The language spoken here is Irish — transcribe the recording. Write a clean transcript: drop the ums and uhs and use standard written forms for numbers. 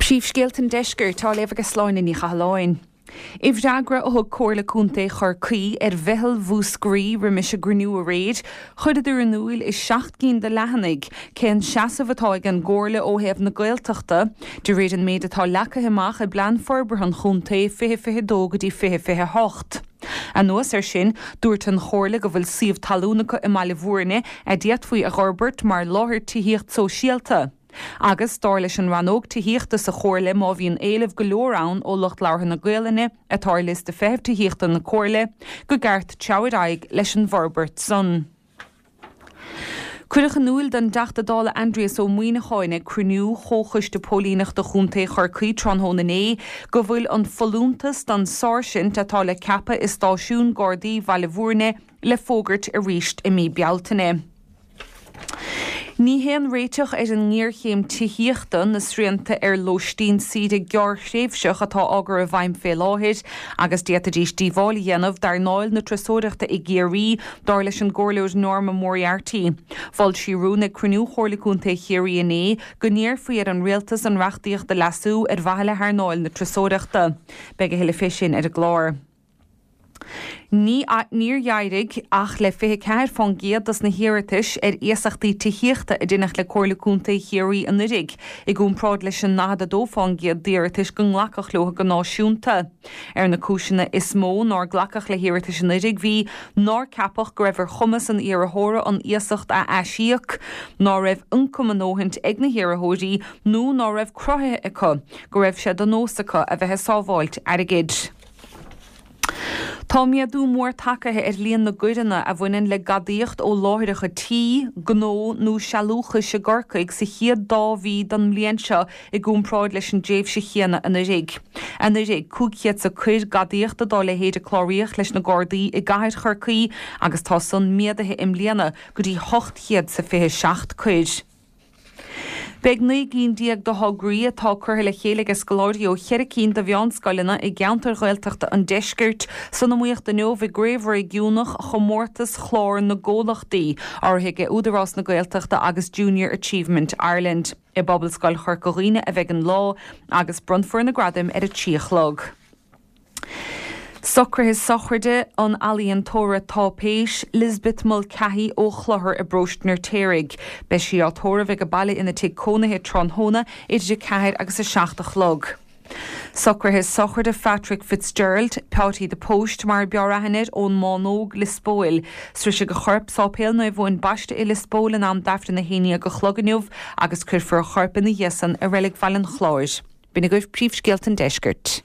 Príomhscéalta an Deiscirt á léamh ag Sláine Ní Chathalláin. I bhfreagra a thug Comhairle Contae Chorcaí ar Mheitheal Mhúscraí roimis a gcruinniú aréir, chuireadar in iúil i 7 gcinn de leathanaigh cén seasamh atá ag an gComhairle ó thaobh na Gaeltachta, de réir an méid atá leagtha amach i bPlean Forbartha an Chontae 2022 go dtí 2028. Anuas air sin, dúirt an Chomhairle go bhfuil suíomh talún acu i mBaile Bhúirne a d'fhéadfaí a dh'fhorbairt mar láthair tithíocht sóisialta. Agus, dar leis an rannóg tithíochta sa Chomhairle, má bhíonn éileamh go leor ann ó lucht labhartha na Gaolainne, atá ar liosta feithimh tithíochta na Comhairle, go gceart treabhadh ar aghaidh leis an bhforbairt san. Cuireadh in iúil don dTeachta Dála Aindrias Ó Muimhneacháin ag cruinniú Chomhchoiste Póilíneachta Chontae Chorcaí tráthnóna inné go bhfuil an folúntas don sáirsint atá le ceapadh i stáisiún Gardaí Bhaile Bhúirne le fógairt arís i mí Bealtaine. Ní haon réiteach ar an ngéarchéim tithíochta na srianta ar lóistín saoire gearrthréimhseach atá á gcur i bhfeidhm fé láthair agus d'fhéadfaidís díobháil a dhéanamh d'earnáil na turasóireachta i gCiarraí, dar leis an gComhairleoir Norma Moriarty. Mhol sí rún ag cruinniú Chomhairle Contae Chiarraí inné go n-iarrfaí ar an Rialtas an reachtaíocht a leasú ar mhaithe le hearnáil na turasóireachta. Beidh a thuilleadh fé sin ar an gclár. Ní níor éirigh ach le 24 fán gcéad dos na hiarratais ar iasachtaí tithíochta a deineadh le Comhairle Contae Chiarraí anuiridh, i gcomparáid leis an 42 fán gcéad d'iarratais go nglacadh leo go náisiúnta. Ar na cúiseanna is mó nár glacadh le hiarratais anuiridh bhí, nár ceapadh go raibh ar chumas an iarrthóra an iasacht a aisíoc, ná raibh ioncam a ndóthaint ag na hiarrthóirí nó ná raibh cruthaithe acu go raibh sé de nós acu a bheith ag sábháilt airgid. Tá méadú mór tagaithe ar líon na gcoireanna a bhaineann le gadaíocht ó láithreacha tí, gnó nó sealúchais i gCorcaigh sa chéad dá mhí den mbliain seo i gcomparáid leis an dtréimhse chéanna anuiridh. Anuiridh, 500 's a coir gadaíochta dá leithéid a cláraíodh leis na Gardaí i gcathair Chorcaí agus tá san méadaithe i mbliana go dtí 800 's a 27 coir. Beidh 19 gcinn de thograí atá curtha le chéile ag scoláirí ó cheithre cinn de mheánscoileanna i gceantair Ghaeltachta an deiscirt san iomaíocht inniu i gCraobh Réigiúnach Chomórtas Chlár na gComhlachtaí, urraithe ag Údarás na Gaeltachta agus Junior Achievement Ireland. I bPobalscoil Chorca Dhuibhne a bheidh an lá agus bronnfar na gradaim ar a 3 a chlog. Socruithe sochraide an ealaíontóra táipéis, Lisbeth Mulcahy ó Chlochar i bparóiste an Fheirtéaraigh. Beidh sí á tórramh ag a baile ina tigh cónaithe tráthnóna idir 4 agus 7 a chlog. Socruithe sochraide Phatrick Fitzgerald, Peáití the Post mar a b'fhearr aithne air, ón mBánóg, Lios Póil. Sroisfidh a chorp Sáipéal Naomh Eoin Baiste i Lios Póil in am d'Aifreann 11 a chlog inniu agus cuirfear a chorp ina dhiaidh san i Reilig Bhaile an Chláir. B'in agaibh príomhscéalta an deiscirt.